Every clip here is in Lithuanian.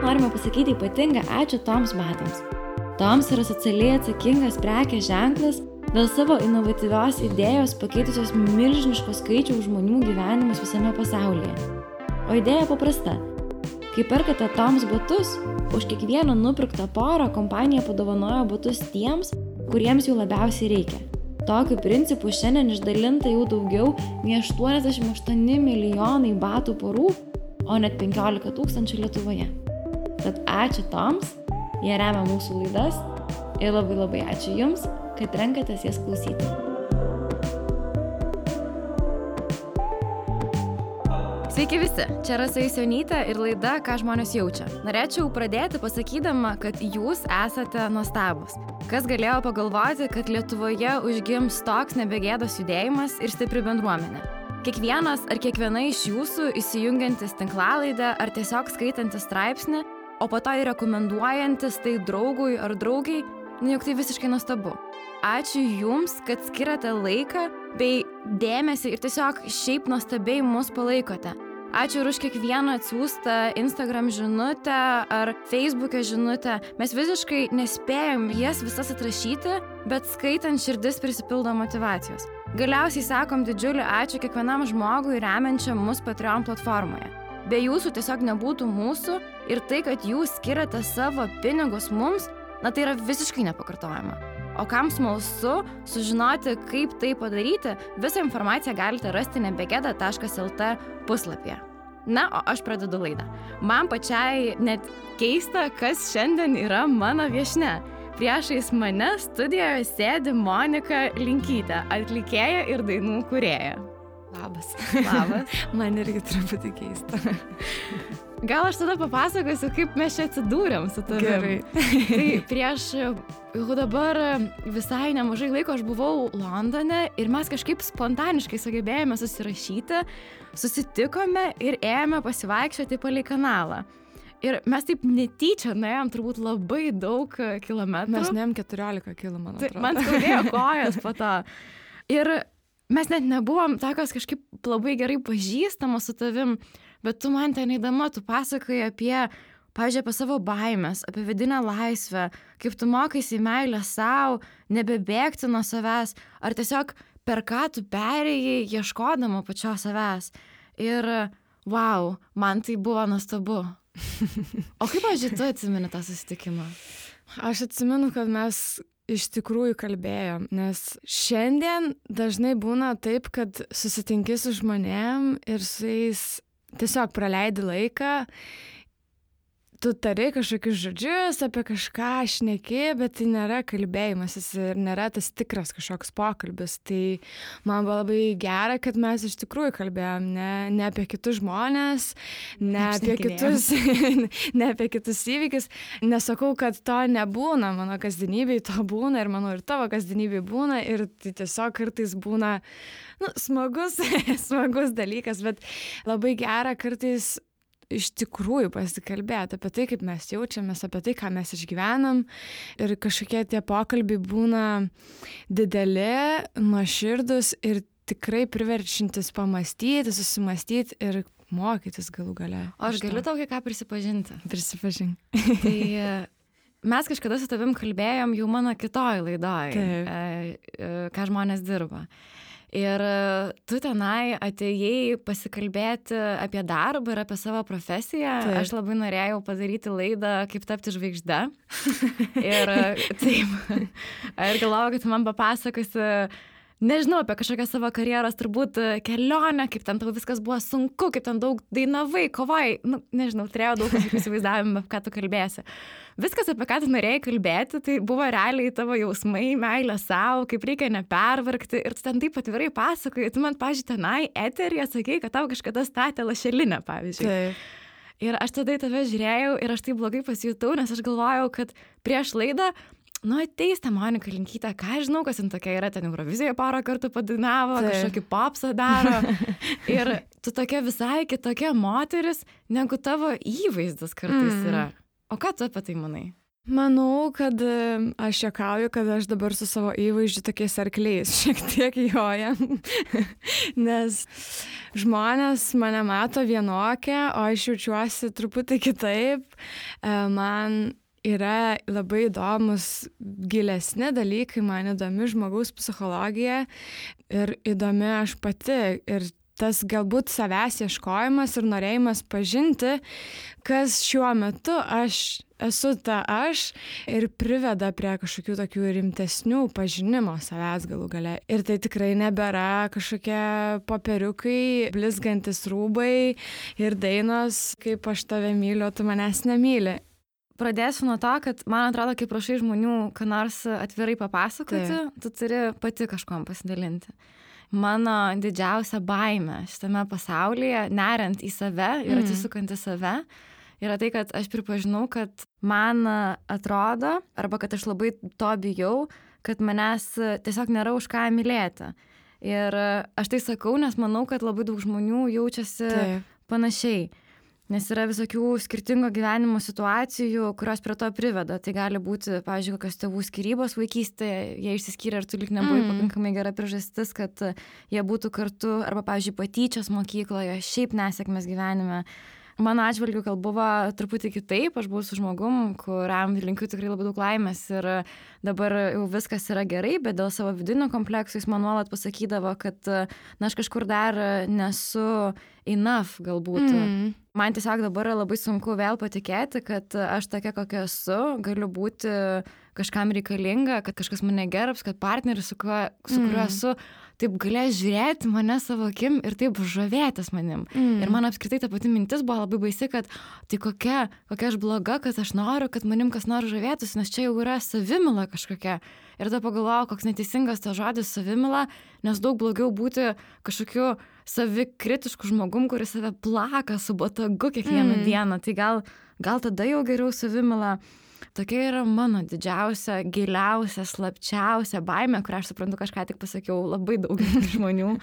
norime pasakyti ypatingą ačiū Toms batams. Toms yra socialiai atsakingas prekės ženklas dėl savo inovatyvios idėjos pakeitusios milžiniško skaičiaus žmonių gyvenimus visame pasaulyje. O idėja paprasta. Kai perkate Toms batus, už kiekvieną nupirktą porą kompanija padovanojo batus tiems, kuriems jų labiausiai reikia. Tokiu principu šiandien išdalinta jau daugiau nei 88 milijonai batų porų, o net 15 000 Lietuvoje. Tad ačiū Toms, jie remia mūsų laidas ir labai ačiū Jums, kad renkatės jas klausyti. Sveiki visi, čia Rasa Jusionytė ir laida Ką žmonės jaučia. Norėčiau pradėti pasakydama, kad jūs esate nuostabūs. Kas galėjo pagalvoti, kad Lietuvoje užgims toks nebegėdos judėjimas ir stipri bendruomenė. Kiekvienas ar kiekviena iš jūsų įsijungiantis tinklalaidę ar tiesiog skaitantis straipsnį, o po to ir rekomenduojantis tai draugui ar draugiai, juk tai visiškai nuostabu. Ačiū Jums, kad skiriate laiką bei dėmesį ir tiesiog šiaip nuostabiai mus palaikote. Ačiū ir už kiekvieną atsiųstą Instagram žinutę ar Facebook'e žinutę. Mes visiškai nespėjom jas visas atrašyti, bet skaitant širdis prisipildo motyvacijos. Galiausiai sakom didžiulį ačiū kiekvienam žmogui remiančiam mus Patreon platformoje. Be jūsų tiesiog nebūtų mūsų ir tai, kad jūs skiriate savo pinigus mums, tai yra visiškai nepakartojama. O kam smalsu sužinoti, kaip tai padaryti, visą informaciją galite rasti nebegeda.lt puslapyje. Na, o aš pradedu laidą. Man pačiai net keista, kas šiandien yra mano viešnia. Priešais mane studijoje sėdi Monika Linkytė, atlikėja ir dainų kūrėja. Labas. Man irgi truputį keista. Gal aš tada papasakosiu, kaip mes čia atsidūrėm su tavim. Gerai. Tai prieš jau dabar visai nemažai laiko aš buvau Londone ir mes kažkaip spontaniškai sugebėjome susirašyti, susitikome ir ėjome pasivaikščioti palei kanalą. Ir mes taip netyčia nuėjom turbūt labai daug kilometrų. Mes nuėjom 14 km. Man skaudėjo kojas po to. Ir mes net nebuvom tokios kažkaip labai gerai pažįstamos su tavim, bet tu man ten eidama, tu pasakoji apie, pavyzdžiui, apie savo baimės, apie vidinę laisvę, kaip tu mokaisi meilę sau, nebebėgti nuo savęs, ar tiesiog per ką tu perėjai ieškodama pačios savęs. Ir, wow, man tai buvo nuostabu. O kaip, pavyzdžiui, tu atsimeni tą susitikimą? Aš atsimenu, kad mes iš tikrųjų kalbėjom, nes šiandien dažnai būna taip, kad susitinki su žmonėm ir su jais tiesiog praleidi laiką, tu tari kažkokius žodžius, apie kažką šneki, bet tai nėra kalbėjimasis ir nėra tas tikras kažkoks pokalbis. Tai man buvo labai gera, kad mes iš tikrųjų kalbėjom ne apie kitus žmonės, ne apie kitus įvykius. Nesakau, kad to nebūna mano kasdienybėj, to būna ir manau ir tavo kasdienybėj būna ir tai tiesiog kartais būna smagus dalykas, bet labai gera kartais iš tikrųjų pasikalbėti apie tai, kaip mes jaučiamės, apie tai, ką mes išgyvenam. Ir kažkokie tie pokalbiai būna dideli, nuoširdus ir tikrai priverčiantis pamastyti, susimastyti ir mokytis galų gale. O aš galiu tau kai ką prisipažinti? Prisipažink. Tai mes kažkada su tavim kalbėjom jau mano kitoj laidoj, ką žmonės dirba. Ir tu tenai atėjai pasikalbėti apie darbą ir apie savo profesiją. Taip. Aš labai norėjau padaryti laidą, kaip tapti žvaigžde. Ir taip. Ir galvojau, kad tu man papasakosi, nežinau, apie kažkokią savo karjeros turbūt kelionę, kaip ten tau viskas buvo sunku, kaip ten daug dainavai, kovai. Nežinau, turėjau daug įsivaizdavimų, ką tu kalbėsi. Viskas, apie ką tu norėjai kalbėti, tai buvo realiai tavo jausmai, meilė savo, kaip reikia nepervargti. Ir tu ten taip atvirai pasakoji. Tu man, pavyzdžiui, tenai eteryje sakei, kad tau kažkada statė lašelinę, pavyzdžiui. Taip. Ir aš tada į tave žiūrėjau ir aš taip blogai pasijutau, nes aš galvojau, kad prieš laidą ateis ta Monika Linkytė, ką žinau, kas jin tokia yra, ten Eurovizijoje porą kartų padainavo, kažkokį popsą daro. Ir tu tokia visai kitokia moteris, negu tavo įvaizdis kartais yra. O ką tu apie tai manai? Manau, kad aš juokauju, kad aš dabar su savo įvaizdžiu tokiais arkliais šiek tiek jojam, nes žmonės mane mato vienokią, o aš jaučiuosi truputį kitaip. Man yra labai įdomus gilesni dalykai, man įdomi žmogaus psichologija ir įdomi aš pati. Ir tas galbūt savęs ieškojimas ir norėjimas pažinti, kas šiuo metu aš esu ta aš ir priveda prie kažkokių tokių rimtesnių pažinimo savęs galų gale. Ir tai tikrai nebėra kažkokie popieriukai, blizgantis rūbai ir dainos, kaip aš tave myliu, tu manęs nemyli. Pradėsiu nuo to, kad man atrodo, kai prašai žmonių, ką nors atvirai papasakoti, tu turi pati kažkuom pasidalinti. Mano didžiausia baimė šitame pasaulyje, neriant į save ir atsisukant į save, yra tai, kad aš pripažinau, kad man atrodo, arba kad aš labai to bijau, kad manęs tiesiog nėra už ką mylėti. Ir aš tai sakau, nes manau, kad labai daug žmonių jaučiasi panašiai. Nes yra visokių skirtingo gyvenimo situacijų, kurios prie to priveda. Tai gali būti, pavyzdžiui, kokios tėvų skyrybos vaikystėje, jie išsiskyrė ir tu lyg nebuvai pakankamai gera priežastis, kad jie būtų kartu, arba, pavyzdžiui, patyčios mokykloje, šiaip nesėkmės gyvenime. Mano atžvilgiu gal buvo truputį kitaip, aš buvau su žmogum, kuriam linkiu tikrai labai daug laimės ir dabar jau viskas yra gerai, bet dėl savo vidinio kompleksų jis man nuolat pasakydavo, kad aš kažkur dar nesu enough galbūt. Man tiesiog dabar labai sunku vėl patikėti, kad aš tokia, kokia esu, galiu būti kažkam reikalinga, kad kažkas mane gerbs, kad partneris, su kuriuo esu, taip galės žiūrėti mane savo akim ir taip žavėtis manim. Ir man apskritai ta pati mintis buvo labai baisi, kad tai kokia aš bloga, kad aš noriu, kad manim kas nors žavėtųsi, nes čia jau yra savimila kažkokia. Ir tada pagalvojau, koks neteisingas tas žodis savimila, nes daug blogiau būti kažkokiu savikritišku žmogum, kuris save plaka su botagu kiekvieną dieną. Tai gal tada jau geriau savimila. Tokia yra mano didžiausia, giliausia, slapčiausia baimė, kurią aš suprantu, kažką tik pasakiau labai daug žmonių.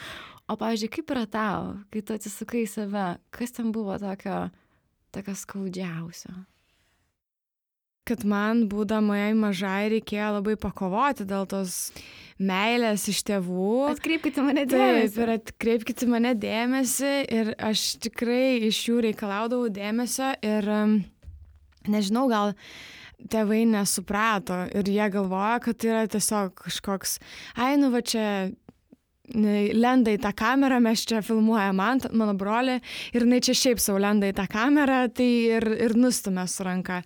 O, pavyzdžiui, kaip yra tau, kai tu atsisukai į save, kas ten buvo tokio skaudžiausio? Kad man, būdamai mažai, reikėjo labai pakovoti dėl tos meilės iš tėvų. Atkreipkite mane dėmesį. Taip, ir atkreipkite mane dėmesį. Ir aš tikrai iš jų reikalaudavau dėmesio. Ir nežinau, gal tėvai nesuprato. Ir jie galvoja, kad tai yra tiesiog kažkoks, va čia lenda į tą kamerą, mes čia filmuojam mano brolį. Ir jinai čia šiaip sau lenda į tą kamerą, tai ir nustumė su ranka.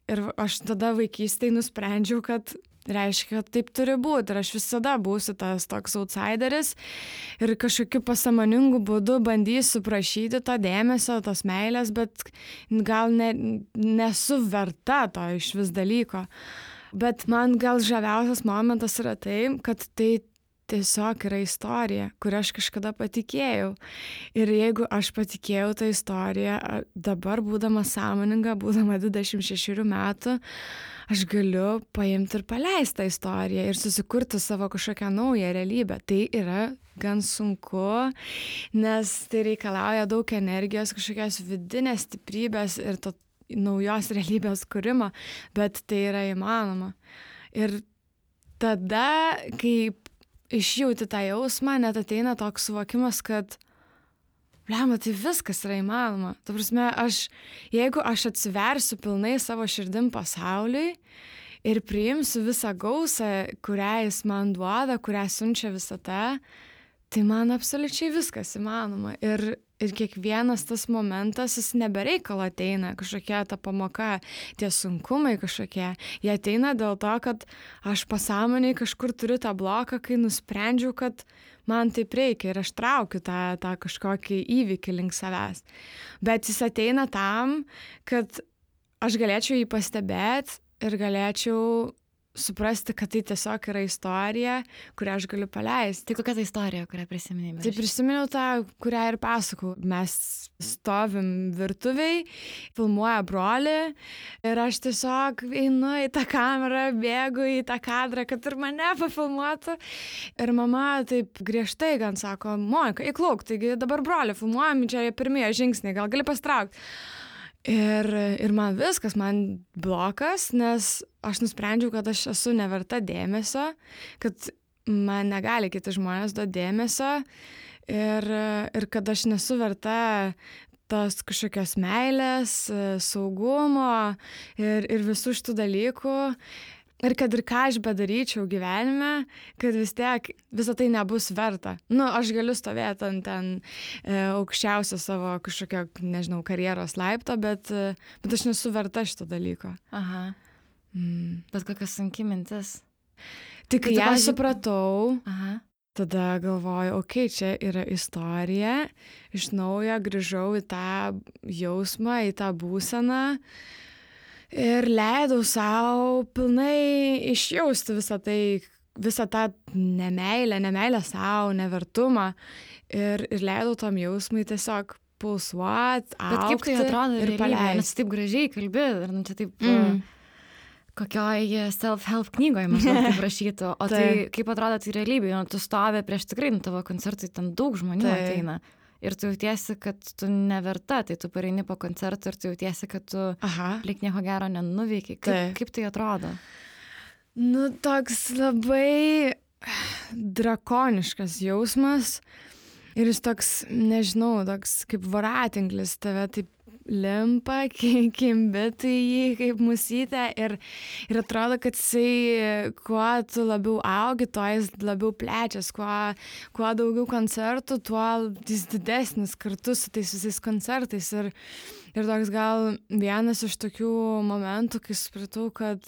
Ir aš tada vaikystėje nusprendžiau, kad reiškia, kad taip turi būti. Ir aš visada būsiu tas toks outsideris ir kažkokiu pasąmoningu būdu bandysiu prašyti to dėmesio, tos meilės, bet gal nesu verta to iš vis dalyko. Bet man gal žaviausias momentas yra tai, kad tai tiesiog yra istorija, kurią aš kažkada patikėjau. Ir jeigu aš patikėjau tą istoriją, dabar būdama sąmoninga, būdama 26 metų, aš galiu paimti ir paleisti tą istoriją ir susikurti savo kažkokią naują realybę. Tai yra gan sunku, nes tai reikalauja daug energijos, kažkokios vidinės stiprybės ir to naujos realybės kūrimo, bet tai yra įmanoma. Ir tada, kai išjauti tą jausmą, net ateina toks suvokimas, kad blemba, tai viskas yra įmanoma. Ta prasme, jeigu aš atsiversiu pilnai savo širdim pasauliui ir priimsiu visą gausą, kurią jis man duoda, kurią siunčia visata, tai man absoliučiai viskas įmanoma. Ir kiekvienas tas momentas, jis nebereikalo ateina, kažkokia ta pamoka, tie sunkumai kažkokie. Jie ateina dėl to, kad aš pasąmoniai kažkur turiu tą bloką, kai nusprendžiau, kad man taip reikia ir aš traukiu tą kažkokį įvykį link savęs. Bet jis ateina tam, kad aš galėčiau jį pastebėti ir galėčiau suprasti, kad tai tiesiog yra istorija, kurią aš galiu paleisti. Tai kokia ta istorija, kurią prisiminėjai? Tai prisiminiau tą, kurią ir pasakau. Mes stovim virtuviai, filmuoja brolį ir aš tiesiog einu į tą kamerą, bėgu į tą kadrą, kad ir mane pafilmuotų. Ir mama taip griežtai gan sako, Monika, įklauk, taigi dabar brolį filmuojam, čia pirmieji žingsniai, gal gali pastraukti. Ir man viskas, man blokas, nes aš nusprendžiau, kad aš esu neverta dėmesio, kad man negali kiti žmonės duoti dėmesio ir kad aš nesu verta tos kažkokios meilės, saugumo ir visų šitų dalykų. Ir kad ir ką aš bedaryčiau gyvenime, kad vis tiek visą tai nebus verta. Aš galiu stovėti ant ten aukščiausio savo kažkokio, nežinau, karjeros laipto, bet aš nesu verta šito dalyko. Aha. Bet kokia sunki mintis. Tik kai ją supratau, Aha. tada galvoju, čia yra istorija, iš naujo grįžau į tą jausmą, į tą būseną. Ir leidau savo pilnai išjausti visą tą nemeilę savo, nevertumą. Ir leidau tam jausmui tiesiog pulsuoti, augti. Bet kaip tai atrodo ir paleisti. Nes taip gražiai kalbi, ir čia taip kokioj self-help knygoje maždaug taip rašytų. O tai kaip atrodo tai realybėje? Tu stovi prieš tikrai tavo koncertai, ten daug žmonių ateina. Ir tu jautiesi, kad tu neverta, tai tu pareini po koncertų ir tu jautiesi, kad tu lyg nieko gero nenuveikiai. Kaip tai atrodo? Toks labai drakoniškas jausmas ir jis toks, nežinau, toks kaip voratinklis tave taip limpa, kimbi tai jį kaip musytė ir atrodo, kad jisai, kuo tu labiau augi, tuo jis labiau plečias, kuo daugiau koncertų, tuo jis didesnis kartu su tais visais koncertais ir toks gal vienas iš tokių momentų, kai supratau, kad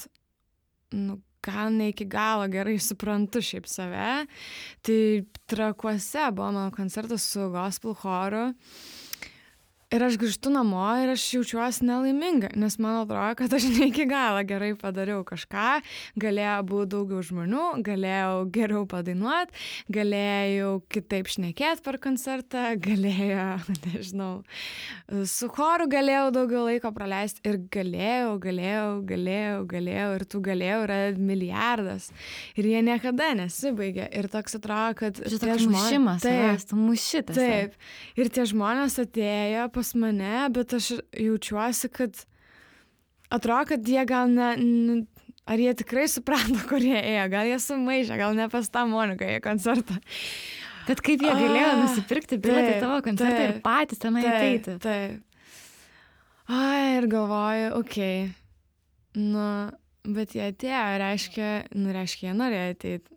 gal ne iki galo gerai suprantu šiaip save, tai Trakuose buvo mano koncertas su gospel choru. Ir aš grįžtu namo ir aš jaučiuosi nelaiminga, nes man atrodo, kad aš ne iki galo gerai padariau kažką, galėjo būti daugiau žmonių, galėjau geriau padainuoti, galėjau kitaip šnekėti per koncertą, galėjau, nežinau, su choru galėjau daugiau laiko praleisti ir galėjau ir tų galėjau yra milijardas ir jie niekada nesibaigia ir toks atrodo, kad tie žmonės, tu mušytas. Taip, ir tie žmonės atėjo pas mane, bet aš jaučiuosi, kad atrodo, kad jie gal ar jie tikrai suprato, kur jie ėjo, gal jie sumaišė, gal ne pas tą Moniką į koncertą. Bet kaip jie galėjo nusipirkti bilietą į tavo koncertą ir patys tenai ateiti? Taip. Ir galvoju, bet jie atėjo, reiškia, jie norėjo ateiti.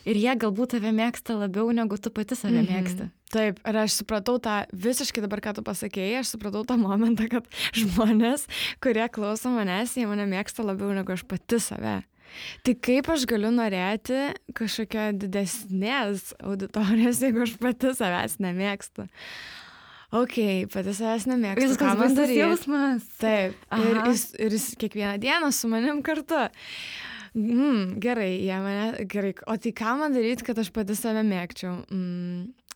Ir jie galbūt tave mėgsta labiau, negu tu pati save mėgsti. Taip, ir aš supratau tą, visiškai dabar, ką tu pasakėjai, aš supratau tą momentą, kad žmonės, kurie klauso manęs, jie mane mėgsta labiau, negu aš pati save. Tai kaip aš galiu norėti kažkokio didesnės auditorijos, jeigu aš pati savęs nemėgstu? Pati savęs nemėgstu. Viskas baisus jausmas. Taip, ir jis kiekvieną dieną su manim kartu. Gerai, o tai ką man daryti, kad aš pati save mėgčiau?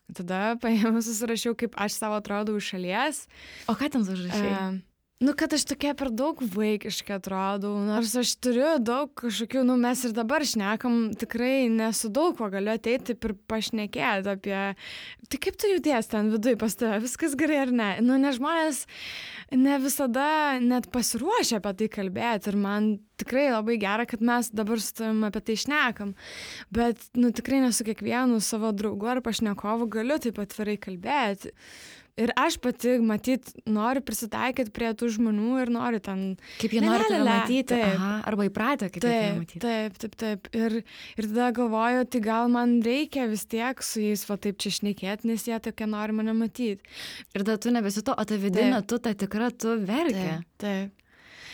Tada paėmus susirašiau, kaip aš savo atrodau iš šalies. O ką ten užrašai? Kad aš tokia per daug vaikiškai atrodau, nors aš turiu daug kažkokių, mes ir dabar šnekam, tikrai nesu daug ko galiu ateiti ir pašnekėti apie, tai kaip tu jauties ten viduj pas tave, viskas gerai ar ne? Nes žmonės ne visada net pasiruošia apie tai kalbėti ir man tikrai labai gera, kad mes dabar su tavim apie tai šnekam, bet tikrai nesu kiekvienu savo draugu ar pašnekovu galiu taip atvirai kalbėti. Ir aš pati, matyt, noriu prisitaikyti prie tų žmonių ir noriu ten... Kaip jie nori tave matyti, arba įpratę, kaip jie matyti. Taip. Ir tada galvoju, tai gal man reikia vis tiek su jais taip čia šnekėti, nes jie tokie nori mane matyti. Ir tada tu nebesi to, o ta vidinė, tu ta tikra, tu verki. Taip.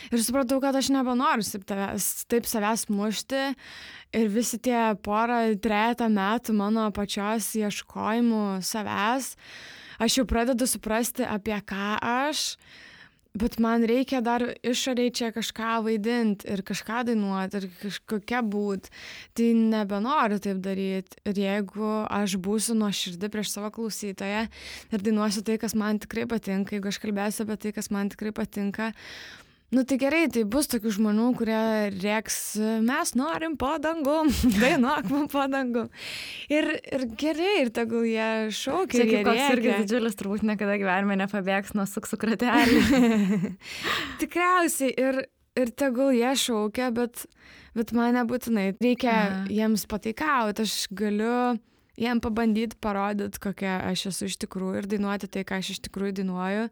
Ir supratau, kad aš nebenoriu taip savęs mušti ir visi tie trejetą metų mano pačios ieškojimų savęs, aš jau pradedu suprasti, apie ką aš, bet man reikia dar išoriai čia kažką vaidinti ir kažką dainuoti ir kažkokia būt. Tai nebenoriu taip daryti. Ir jeigu aš būsiu nuoširdi prieš savo klausytoją ir dainuosiu tai, kas man tikrai patinka, jeigu aš kalbėsiu apie tai, kas man tikrai patinka, Nu tai gerai, tai bus tokių žmonių, kurie rėks, mes norim po dangum, dainuok man po dangum. Ir gerai, ir tegul jie šaukia. Čia kaip koks irgi didžiulis, turbūt niekada gyvenime nepabėgs nuo suksų kratelį. Tikriausiai, ir tegul jie šaukia, bet man nebūtinai reikia jiems pataikauti, aš galiu jiem pabandyti parodyti, kokia aš esu iš tikrųjų ir dainuoti tai, ką aš iš tikrųjų dainuoju.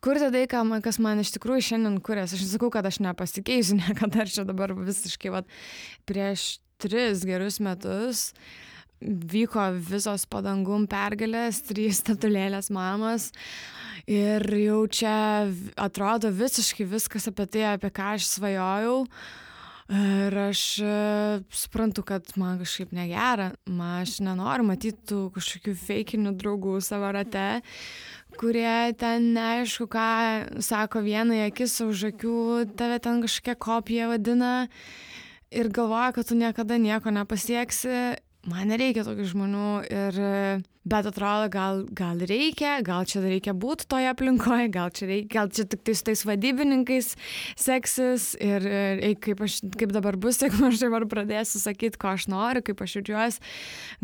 Kurti tai, kas man iš tikrųjų šiandien kurias. Aš nesakau, kad aš nepasikeisiu niekada, ar čia dabar visiškai, prieš 3 gerus metus vyko visos padangum pergalės, 3 statulėlės mamos ir jau čia atrodo visiškai viskas apie tai, apie ką aš svajojau. Ir aš suprantu, kad man kažkaip negera, aš nenoriu matyti tų kažkokių feikinių draugų savo rate, kurie ten neaišku, ką sako vieną akis už akių, tave ten kažkokia kopija vadina ir galvoja, kad tu niekada nieko nepasieksi. Man nereikia tokių žmonių, bet atrodo, gal reikia, gal čia reikia būti toje aplinkoje, gal čia tik tai su tais vadybininkais seksis ir kaip dabar bus, jeigu aš dabar pradėsiu sakyti, ko aš noriu, kaip aš jaučiuosi,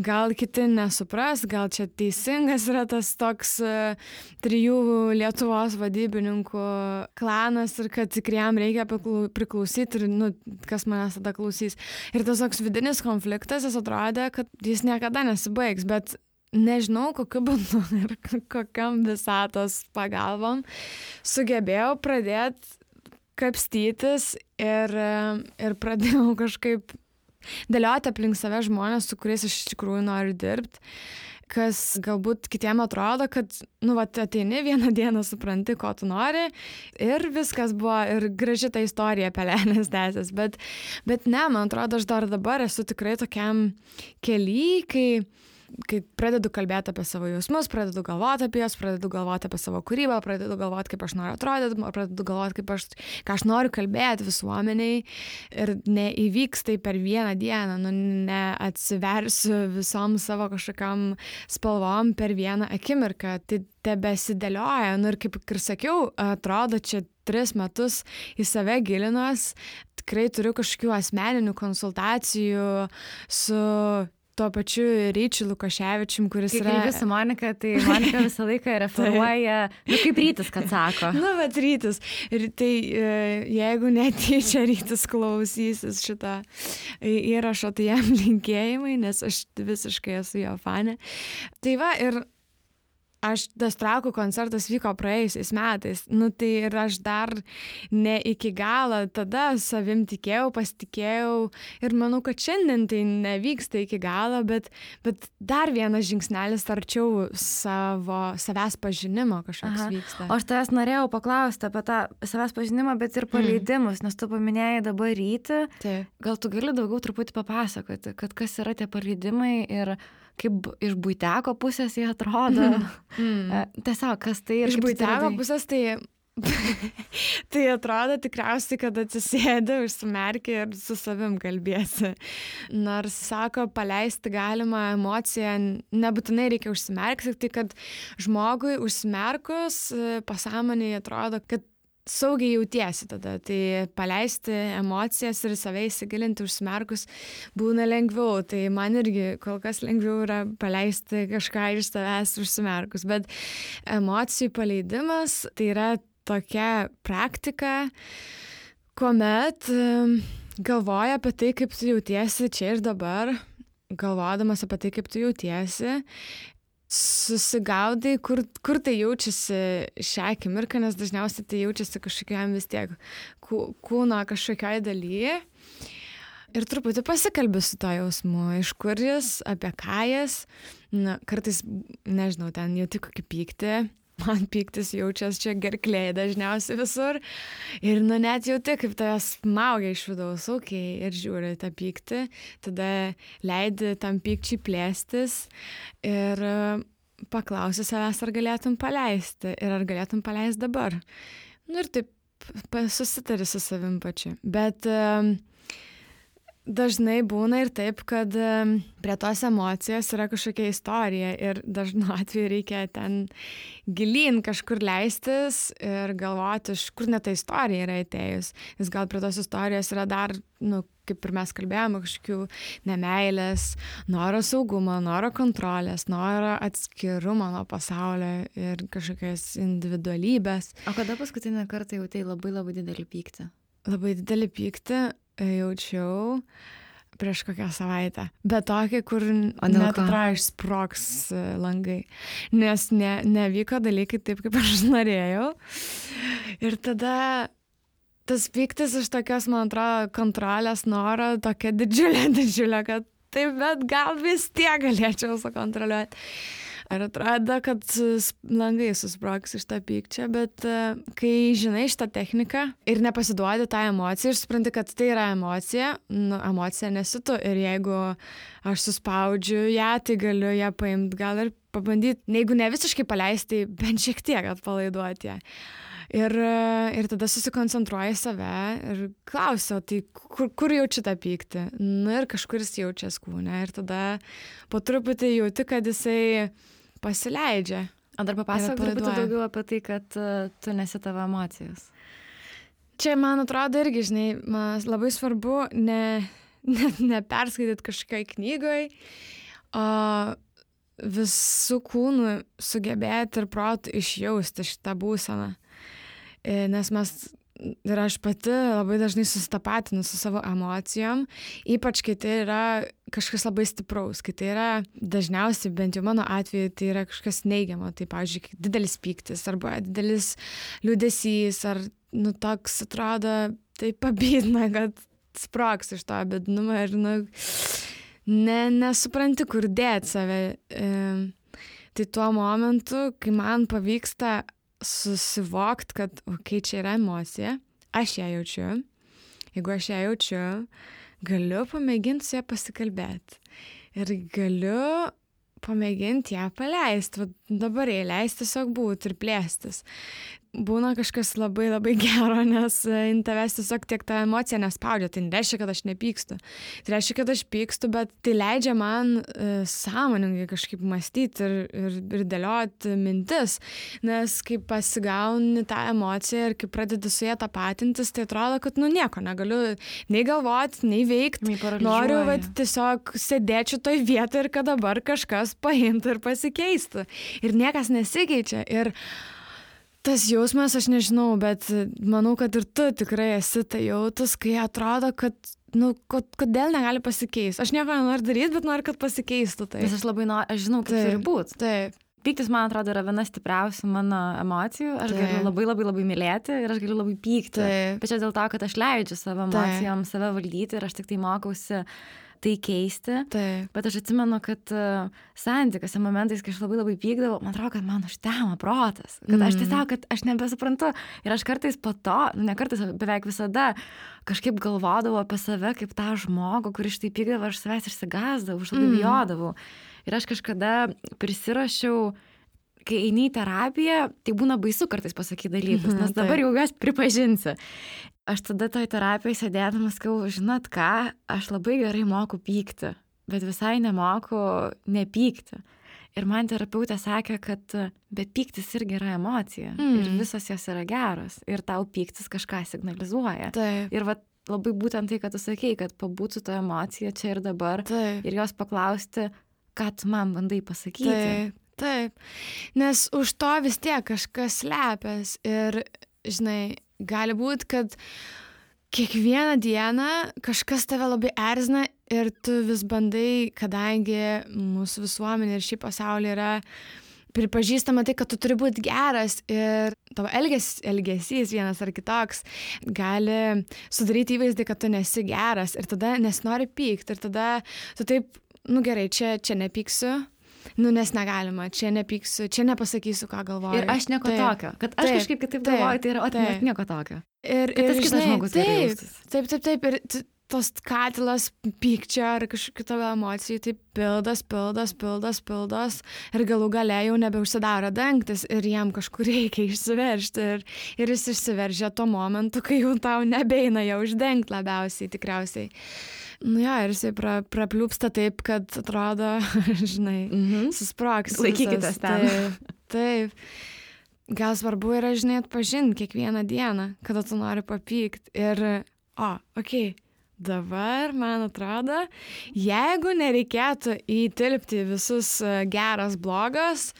gal kiti nesupras, gal čia teisingas yra tas toks 3 Lietuvos vadybininkų klanas ir kad tikriem reikia priklausyti ir, kas manęs tada klausys. Ir tas toks vidinis konfliktas, jis atrodė, kad jis niekada nesibaigs, bet nežinau, kokiu būdu ir kokiam visatos pagalbom sugebėjau pradėti kapstytis ir pradėjau kažkaip dėlioti aplink save žmonės, su kuriais aš iš tikrųjų noriu dirbti, kas galbūt kitiem atrodo, kad, ateini vieną dieną, supranti, ko tu nori ir viskas buvo ir graži ta istorija pelenės tęsės, bet ne, man atrodo, aš dar dabar esu tikrai tokiam kely, kai pradedu kalbėti apie savo jausmus, pradedu galvoti apie juos, pradedu galvoti apie savo kūrybą, pradedu galvoti, kaip aš noriu atrodyti, pradedu galvoti, ką aš noriu kalbėti visuomeniai ir neįvyks tai per vieną dieną, neatsiversiu visom savo kažkokiam spalvom per vieną akimirką, tai tebesidėlioja, ir kaip ir sakiau, atrodo, čia 3 metus į save gilinos, tikrai turiu kažkokių asmeninių konsultacijų su tuo pačiu Ryčiu Lukaševičium, kuris yra... Kai kalbi su Monika, tai Monika visą laiką referuoja, kaip Rytis, kad sako. Bet Rytis. Ir tai jeigu netyčia Rytis klausysis šitą įrašą, tai jam linkėjimai, nes aš visiškai esu jo fanė. Tai va, ir tas Trakų koncertas vyko praėjusiais metais, tai ir aš dar ne iki galo tada savim tikėjau, pasitikėjau ir manau, kad šiandien tai nevyksta iki galo, bet dar vienas žingsnelis arčiau savęs pažinimo kažkoks vyksta. O aš tavęs norėjau paklausti apie tą savęs pažinimą, bet ir paleidimus, nes tu paminėjai dabar Rytį. Gal tu gali daugiau truputį papasakoti, kad kas yra tie paleidimai ir kaip iš buiteko pusės jie atrodo. Tiesiog, kas tai ir iš buiteko pusės tai atrodo tikriausiai, kad atsisėdi, užsimerki ir su savim kalbėsi. Nors sako, paleisti galima emociją, nebūtinai reikia užsimerkti, tai kad žmogui užsimerkus pasąmonėje atrodo, kad saugiai jautiesi tada, tai paleisti emocijas ir save įsigilinti užsimerkus būna lengviau, tai man irgi kol kas lengviau yra paleisti kažką iš savęs užsimerkus, bet emocijų paleidimas tai yra tokia praktika, kuomet galvoja apie tai, kaip tu jautiesi čia ir dabar, galvodamas apie tai, kaip tu jautiesi, susigaudai, kur tai jaučiasi šią akimirką, nes dažniausiai tai jaučiasi kažkokiam vis tiek kūno kažkokioj dalyje. Ir truputį pasikalbi su to jausmu, iš kur jis, apie ką jis. Kartais, nežinau, ten jauti kokį pyktį. Man pyktis jaučiasi čia gerklėje dažniausiai visur. Ir net jauti, kaip tavęs smaugia iš vidaus, ir žiūri tą pyktį. Tada leidi tam pykčiui plėstis ir paklausi savęs, ar galėtum paleisti. Ir ar galėtum paleisti dabar. Ir taip susitari su savim pačiu. Bet dažnai būna ir taip, kad prie tos emocijos yra kažkokia istorija ir dažnu atveju reikia ten gilyn kažkur leistis ir galvoti, iš kur net ta istorija yra atėjus. Nes gal prie tos istorijos yra dar, kaip ir mes kalbėjome, kažkokių nemeilės, noro saugumo, noro kontrolės, noro atskirumo nuo pasaulio ir kažkokios individualybės. O kada paskutinį kartą jautei labai labai didelį pyktį? Labai didelį pyktį jaučiau prieš kokią savaitę. Bet tokį, kur net atrodo išsprogs langai. Nes nevyko dalykai taip, kaip aš norėjau. Ir tada tas pyktis iš tokios, man atrodo, kontrolės noro, tokia didžiulė, kad taip, bet gal vis tiek galėčiau sukontroliuoti. Ir atrodo, kad langai susprogs iš tą pykčio, bet kai žinai šitą techniką ir nepasiduodi tą emociją ir supranti, kad tai yra emocija, emocija nesi tu. Ir jeigu aš suspaudžiu ją, tai galiu ją paimti, gal ir pabandyti, jeigu ne visiškai paleisti, bent šiek tiek atpalaiduoti ją. Ir tada susikoncentruoji save ir klausiu, tai kur jaučiu tą pyktį? Ir kažkur jis jaučias kūne. Ir tada po truputį jauti, kad jisai pasileidžia. O dar papasakok truputį daugiau apie tai, kad tu nesi tavo emocijos. Čia, man atrodo, irgi, žinai, man labai svarbu neperskaityti kažkokiai knygoje, o visų kūnų sugebėti ir protų išjausti šitą būseną. Nes ir aš pati labai dažnai susitapatinu su savo emocijom, ypač kai tai yra kažkas labai stipraus, kai tai yra dažniausiai, bent jau mano atveju, tai yra kažkas neigiamo, tai pavyzdžiui, didelis pyktis arba didelis liūdesys, ar toks atrodo, tai pabydna, kad sprogs iš to bėdnumo ir nesupranti, kur dėti save. Tai tuo momentu, kai man pavyksta susivokti, kad čia yra emocija, aš ją jaučiu. Jeigu aš ją jaučiu, galiu pamėginti su ją pasikalbėti. Ir galiu pamėginti ją paleisti. Dabar jai leisti tiesiog būti ir plėstis. Būna kažkas labai labai gero, nes tavęs tiesiog tiek ta emocija nespaudžia. Tai nereiškia, kad aš nepykstu. Tai reiškia, kad aš pykstu, bet tai leidžia man sąmoningai kažkaip mąstyti ir dėlioti mintis. Nes kai pasigauni tą emociją ir kai pradedi su ją tapatintis, tai atrodo, kad nieko negaliu nei galvoti, nei veikti. Noriu tiesiog sėdėčiau toj vietoje ir kad dabar kažkas paimtų ir pasikeistų. Ir niekas nesikeičia. Ir tas jausmas, aš nežinau, bet manau, kad ir tu tikrai esi tai jautus, kai atrodo, kad, kodėl negali pasikeisti. Aš nieko nenoriu daryti, bet noriu, kad pasikeistų tai. Nes aš žinau, kaip turi būti. Taip. Pyktis, man atrodo, yra viena stipriausių mano emocijų. Aš galiu labai labai labai mylėti ir aš galiu labai pykti. Taip. Bet čia dėl to, kad aš leidžiu savo emocijom save valdyti ir aš tik tai mokausi tai keisti. Taip. Bet aš atsimenu, kad santykiuose momentais, kai aš labai labai pykdavau, man atrodo, kad man užtemo protas. Kad aš tiesiog, kad aš nebesuprantu. Ir aš kartais po to, ne kartais, beveik visada kažkaip galvodavau apie save kaip tą žmogų, kuris štai pykdavo, aš savęs išsigąsdavau, aš labai bijodavau. Ir aš kažkada prisirašiau, kai eini į terapiją, tai būna baisu kartais pasakyti dalykus, nes dabar jau juos pripažinsiu. Aš tada toj terapijoj sėdėdamas sakau, žinot ką, aš labai gerai moku pykti, bet visai nemoku nepykti. Ir man terapeutė sakė, kad bet pyktis irgi yra emocija. Ir visos jos yra geros. Ir tau pyktis kažką signalizuoja. Taip. Ir labai būtent tai, kad tu sakei, kad pabūti su to emocija čia ir dabar. Taip. Ir jos paklausti, ką tu man bandai pasakyti. Taip. Nes už to vis tiek kažkas slepias. Ir, žinai, gali būti, kad kiekvieną dieną kažkas tave labai erzina ir tu vis bandai, kadangi mūsų visuomenė ir šį pasaulį yra pripažįstama tai, kad tu turi būti geras ir tavo elgesys vienas ar kitoks gali sudaryti įvaizdį, kad tu nesi geras ir tada nesinori pykti ir tada tu taip, gerai, čia nepyksiu. Nes negalima, čia nepyksiu, čia nepasakysiu, ką galvoju. Ir aš nieko tokio. Kad aš kažkaip kitaip galvoju, tai yra nieko tokio. Ir tas kitas žmogus turi jaustis. Taip. Ir tos katilas pykčio ar kažkokių tavo emocijų, tai pildos. Ir galų gale jau nebeužsidaro dangtis ir jam kažkur reikia išsiveržti. Ir jis išsiveržia tuo momentu, kai jau tau nebeina jau uždengti labiausiai tikriausiai. Nu jo, ir jisai prapliūpsta taip, kad atrodo, žinai, susprogs. Laikykitės ten. Taip. Gal svarbu yra, žinai, atpažinti kiekvieną dieną, kada tu nori papykti. Ir, dabar, man atrodo, jeigu nereikėtų įtilpti visus geras, blogas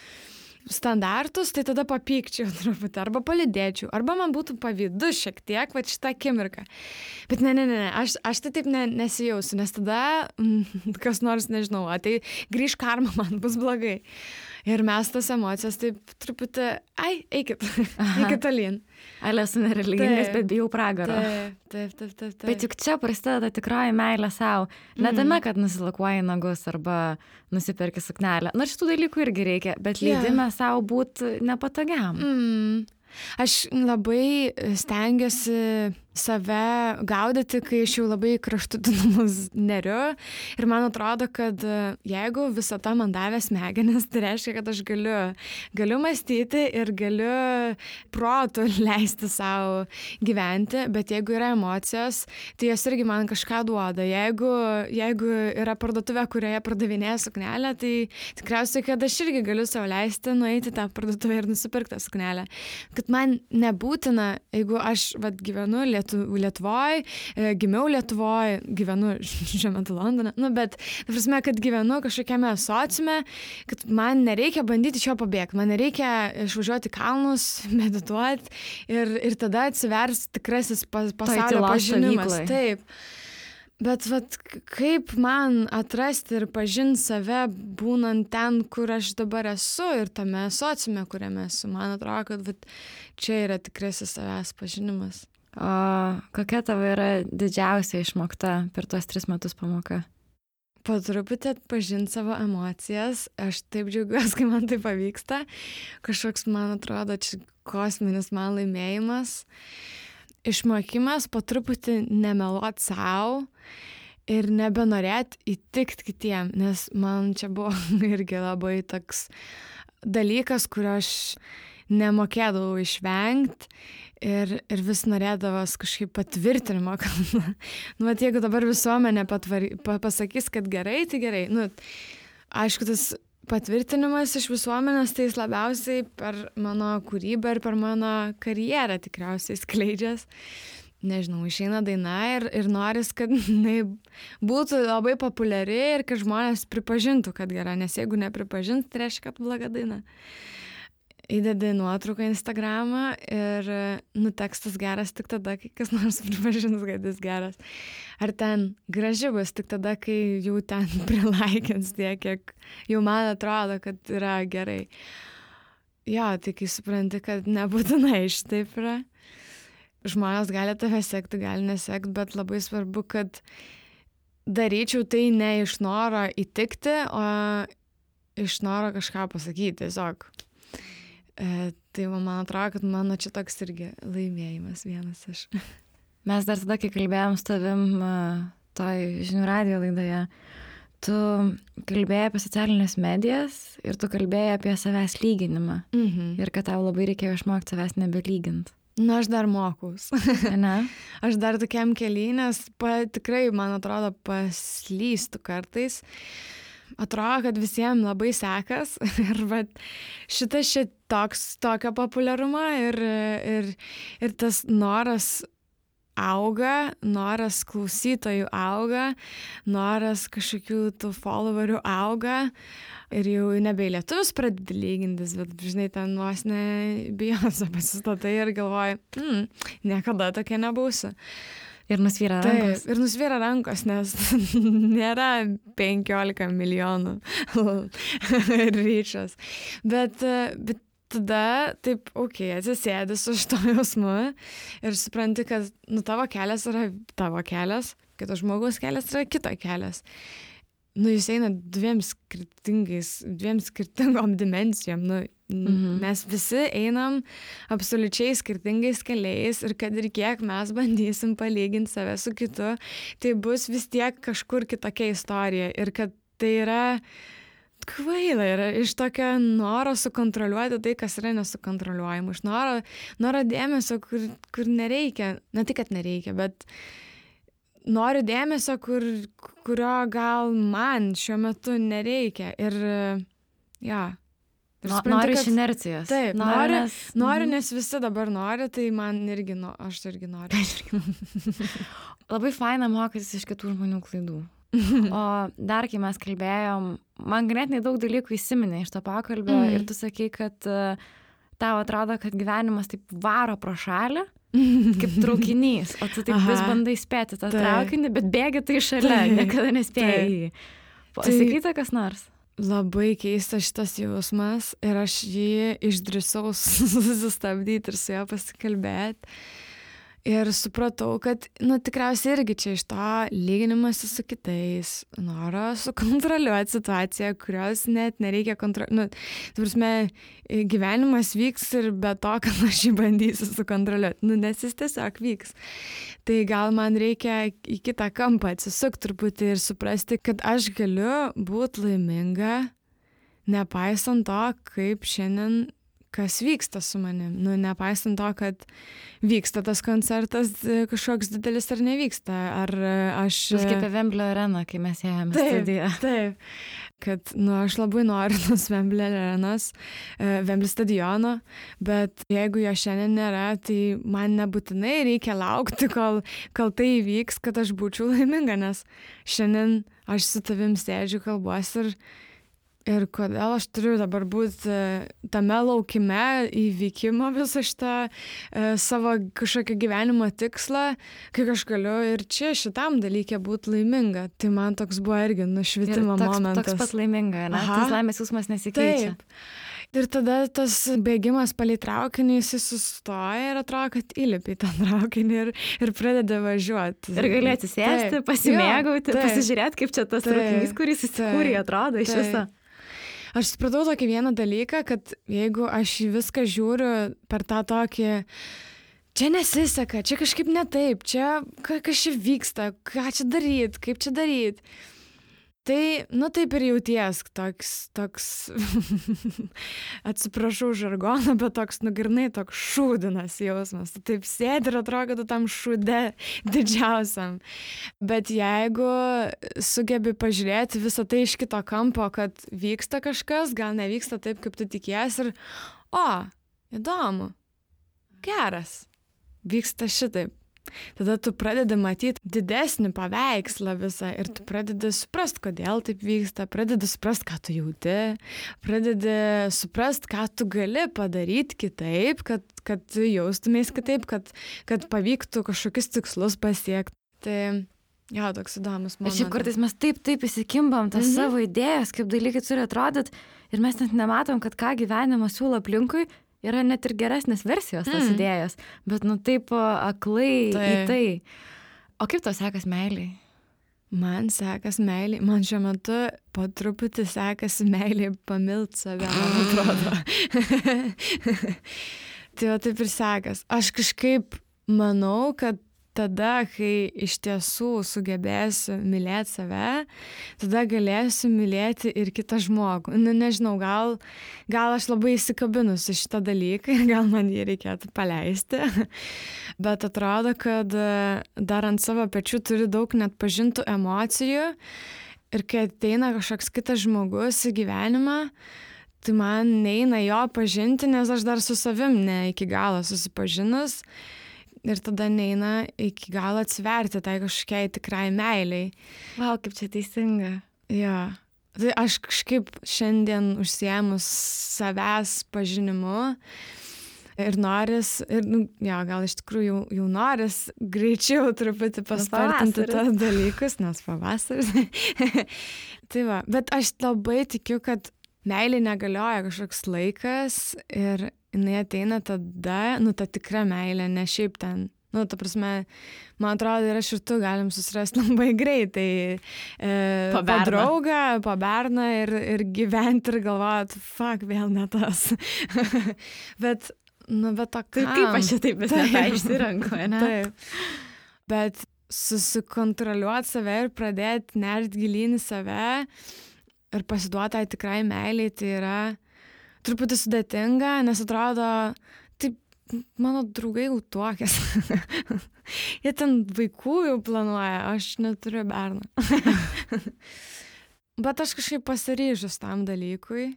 standartus, tai tada papykčiau truputį, arba palidėčiau, arba man būtų pavydu šiek tiek, va šitą akimirką. Bet ne, aš tai taip nesijausiu, nes tada kas nors, nežinau, tai grįž karma, man bus blogai. Ir mes tas emocijas taip truputį, eikit tolyn. Ale esu nereligingas, bet bijau pragaro. Taip. Bet juk čia prasideda tikroji meilė savo. Ne tame, kad nusilakuoji nagus arba nusiperki suknelę. Nors šitų dalykų irgi reikia, bet leidime savo būti nepatogiam. Aš labai stengiuosi save gaudyti, kai aš jau labai kraštutinumus neriu. Ir man atrodo, kad jeigu visata man davė smegenis, tai reiškia, kad aš galiu mąstyti ir galiu protu leisti savo gyventi, bet jeigu yra emocijos, tai jos irgi man kažką duoda. Jeigu yra parduotuvė, kurioje pardavinėja suknelę, tai tikriausiai, kad aš irgi galiu savo leisti nueiti tą parduotuvę ir nusipirkti tą suknelę. Kad man nebūtina, jeigu aš gyvenu Lietuvoje, gimiau Lietuvoje, gyvenu šiuo metu Londone, bet ta prasme, kad gyvenu kažkokiame sociume, kad man nereikia bandyti iš jo pabėgti, man nereikia išvažiuoti kalnus, medituoti ir tada atsivers tikrasis pasaulio pažinimas. Taip. Bet kaip man atrasti ir pažinti save būnant ten, kur aš dabar esu ir tame sociume, kuriame esu. Man atrodo, kad čia yra tikrasis savęs pažinimas. O kokia tavo yra didžiausia išmokta per tuos 3 metus pamoka? Po truputį atpažinti savo emocijas. Aš taip džiaugiuosi, kai man tai pavyksta. Kažkoks, man atrodo, čia kosminis man laimėjimas. Išmokimas po truputį nemeluot savo ir nebenorėti įtikti kitiem, nes man čia buvo irgi labai toks dalykas, kurio aš nemokėdavau išvengti ir vis norėdavos kažkaip patvirtinimo, kad jeigu dabar visuomenė pasakys, kad gerai, tai gerai. Aišku, tas patvirtinimas iš visuomenės, tai jis labiausiai per mano kūrybą ir per mano karjerą tikriausiai skleidžias. Nežinau, išeina daina ir noris, kad jinai būtų labai populiari ir kad žmonės pripažintų, kad gera, nes jeigu nepripažintų, tai reiškia, kad bloga daina. Įdedi nuotrauką Instagramą ir tekstas geras tik tada, kai kas nors pripažins, kad jis geras. Ar ten graži bus tik tada, kai jau ten prilaikins tiek, kiek jau man atrodo, kad yra gerai. Jo, tai kai supranti, kad nebūtinai šitaip yra. Žmonės gali tave sekti, gali nesekti, bet labai svarbu, kad daryčiau tai ne iš noro įtikti, o iš noro kažką pasakyti tiesiog. Tai man atrodo, kad mano čia toks irgi laimėjimas vienas iš. Mes dar tada, kai kalbėjom su tavim toj Žinių radijo laidoje, tu kalbėjai apie socialinės medijas ir tu kalbėjai apie savęs lyginimą. Ir kad tau labai reikėjo išmokti savęs nebelygint. Aš dar mokaus. Ne? Aš dar tokiam kely, nes tikrai, man atrodo, paslystu kartais. Atrodo, kad visiems labai sekas ir šitas tokio populiarumo ir tas noras auga, noras klausytojų auga, noras kažkokių tų followerių auga ir jau nebe lietuvius pradedi lygintis, bet žinai, ten vos ne Beyoncé pasistatai ir galvoji, niekada tokia nebūsiu. Ir nusvyra rankos. Taip, ir nusvyra rankos, nes nėra 15 milijonų ryčios. Bet tada taip, atsisėdi su šito jausmu ir supranti, kad tavo kelias yra tavo kelias, kito žmogaus kelias yra kito kelias. Jūs eina dviem skirtingom dimensijom. Mes visi einam absoliučiai skirtingais keliais ir kad ir kiek mes bandysim palyginti save su kitu, tai bus vis tiek kažkur kitokia istorija. Ir kad tai yra kvaila, yra iš tokio noro sukontroliuoti tai, kas yra nesukontroliuojama. Iš noro dėmesio, kur nereikia. Ne tik, kad nereikia, bet noriu dėmesio, kurio gal man šiuo metu nereikia. Ir Noriu iš inercijos. Taip, noriu, nes visi dabar nori, tai man irgi, aš irgi noriu. Labai faina mokytis iš kitų žmonių klaidų. O dar, kai mes kalbėjom, man ganėtinai daug dalykų įsiminė iš to pokalbio ir tu sakai, kad tau atrodo, kad gyvenimas taip varo pro šalį, kaip traukinys, o tu taip vis bandai spėti tą traukinį, bet bėgi tai šalia, niekada nespėjai. Pasakyta kas nors? Labai keistas šitas jausmas ir aš jį išdrįsau susistabdyti ir su juo pasikalbėti. Ir supratau, kad, tikriausiai irgi čia iš to lyginimasi su kitais, noro sukontroliuoti situaciją, kurios net nereikia kontroliuoti. Gyvenimas vyks ir be to, kad aš jį bandysiu sukontroliuoti, nes jis tiesiog vyks. Tai gal man reikia į kitą kampą atsisukti truputį ir suprasti, kad aš galiu būti laiminga, nepaisant to, kaip šiandien kas vyksta su manim. Nepaisant to, kad vyksta tas koncertas kažkoks didelis ar nevyksta. Ar aš... Kaip apie Vemblio areną, kai mes ėjome studiją. Taip. Kad, aš labai noriu tos Vemblio arenos, Vemblio stadiono, bet jeigu jo šiandien nėra, tai man nebūtinai reikia laukti, kol tai įvyks, kad aš būčiau laiminga, nes šiandien aš su tavim sėdžiu, kalbuosi ir kodėl aš turiu dabar būti tame laukime įvykimo visą šitą savo kažkokį gyvenimo tikslą, kai aš galiu ir čia šitam dalykė būti laiminga. Tai man toks buvo irgi nušvitimo momentas. Toks pat laiminga, ne? Tas laimės jausmas nesikeičia. Taip. Ir tada tas bėgimas palei traukinį, jis sustoja ir atrodo, kad įlipi į tą traukinį ir pradeda važiuoti. Ir gali atsisėsti, pasimėgauti, pasižiūrėti, kaip čia tas traukinys, kuris įsikūrė, atrodo iš viso. Aš supratau tokį vieną dalyką, kad jeigu aš į viską žiūriu per tą tokį, čia nesiseka, čia kažkaip ne taip, čia kas čia vyksta, ką čia daryt, kaip čia daryt. Tai, taip ir jauties toks atsiprašau žargoną, bet toks grynai toks šūdinas jausmas. Tu taip sėdi ir atrodo, kad tu tam šūde didžiausiam. Bet jeigu sugebi pažiūrėti visą tai iš kito kampo, kad vyksta kažkas, gal nevyksta taip, kaip tu tikiesi ir, įdomu, geras, vyksta šitaip. Tada tu pradedi matyti didesnį paveikslą visą ir tu pradedi suprasti, kodėl taip vyksta, pradedi suprasti, ką tu jauti, pradedi suprasti, ką tu gali padaryti kitaip, kad jaustumės kitaip, kad pavyktų kažkokius tikslus pasiekti. Tai toks įdomus momentas. Ir šiaip kartais mes taip įsikimbam tas savo idėjas, kaip dalykai turi atrodyti ir mes net nematom, kad ką gyvenimas siūlo aplinkui, yra net ir geresnės versijos tos idėjos, bet taip aklai į tai. O kaip tau sekas meiliai? Man sekas meiliai, man šiuo metu po truputį sekasi meiliai pamilt save, man atrodo. Tai taip ir sekas. Aš kažkaip manau, kad tada, kai iš tiesų sugebėsiu mylėti save, tada galėsiu mylėti ir kitą žmogų. Nežinau, gal aš labai įsikabinusi šitą dalyką ir gal man jį reikėtų paleisti, bet atrodo, kad dar ant savo pečių turiu daug net pažintų emocijų ir kai ateina kažkoks kitas žmogus į gyvenimą, tai man neina jo pažinti, nes aš dar su savim ne iki galo susipažinus. Ir tada neina iki galo atsiverti tai kažkokiai tikrai meiliai. Vau, kaip čia teisinga. Jo. Tai aš kažkaip šiandien užsiėmus savęs pažinimu ir noris, gal iš tikrųjų jau noris greičiau truputį paspartinti tos dalykus, nes pavasaris. Tai va, bet aš labai tikiu, kad meilė negalioja kažkoks laikas ir jinai ateina tada, ta tikra meilė, ne šiaip ten. Ta prasme, man atrodo, ir aš ir tu galim susirasti labai greitai. Po draugą, po berną ir gyventi ir galvoti, vėl ne tas. Bet to kam? Kaip aš čia taip vis nepaišsirenku, ne? Taip. Bet susikontroliuoti save ir pradėti nerti gilyn į save ir pasiduoti tikrai meiliai, tai yra truputį sudėtinga, nes atrodo, taip mano draugai jau tuokėsi. Jie ten vaikų jau planuoja, aš neturiu berną. Bet aš kažkaip pasiryžus tam dalykui,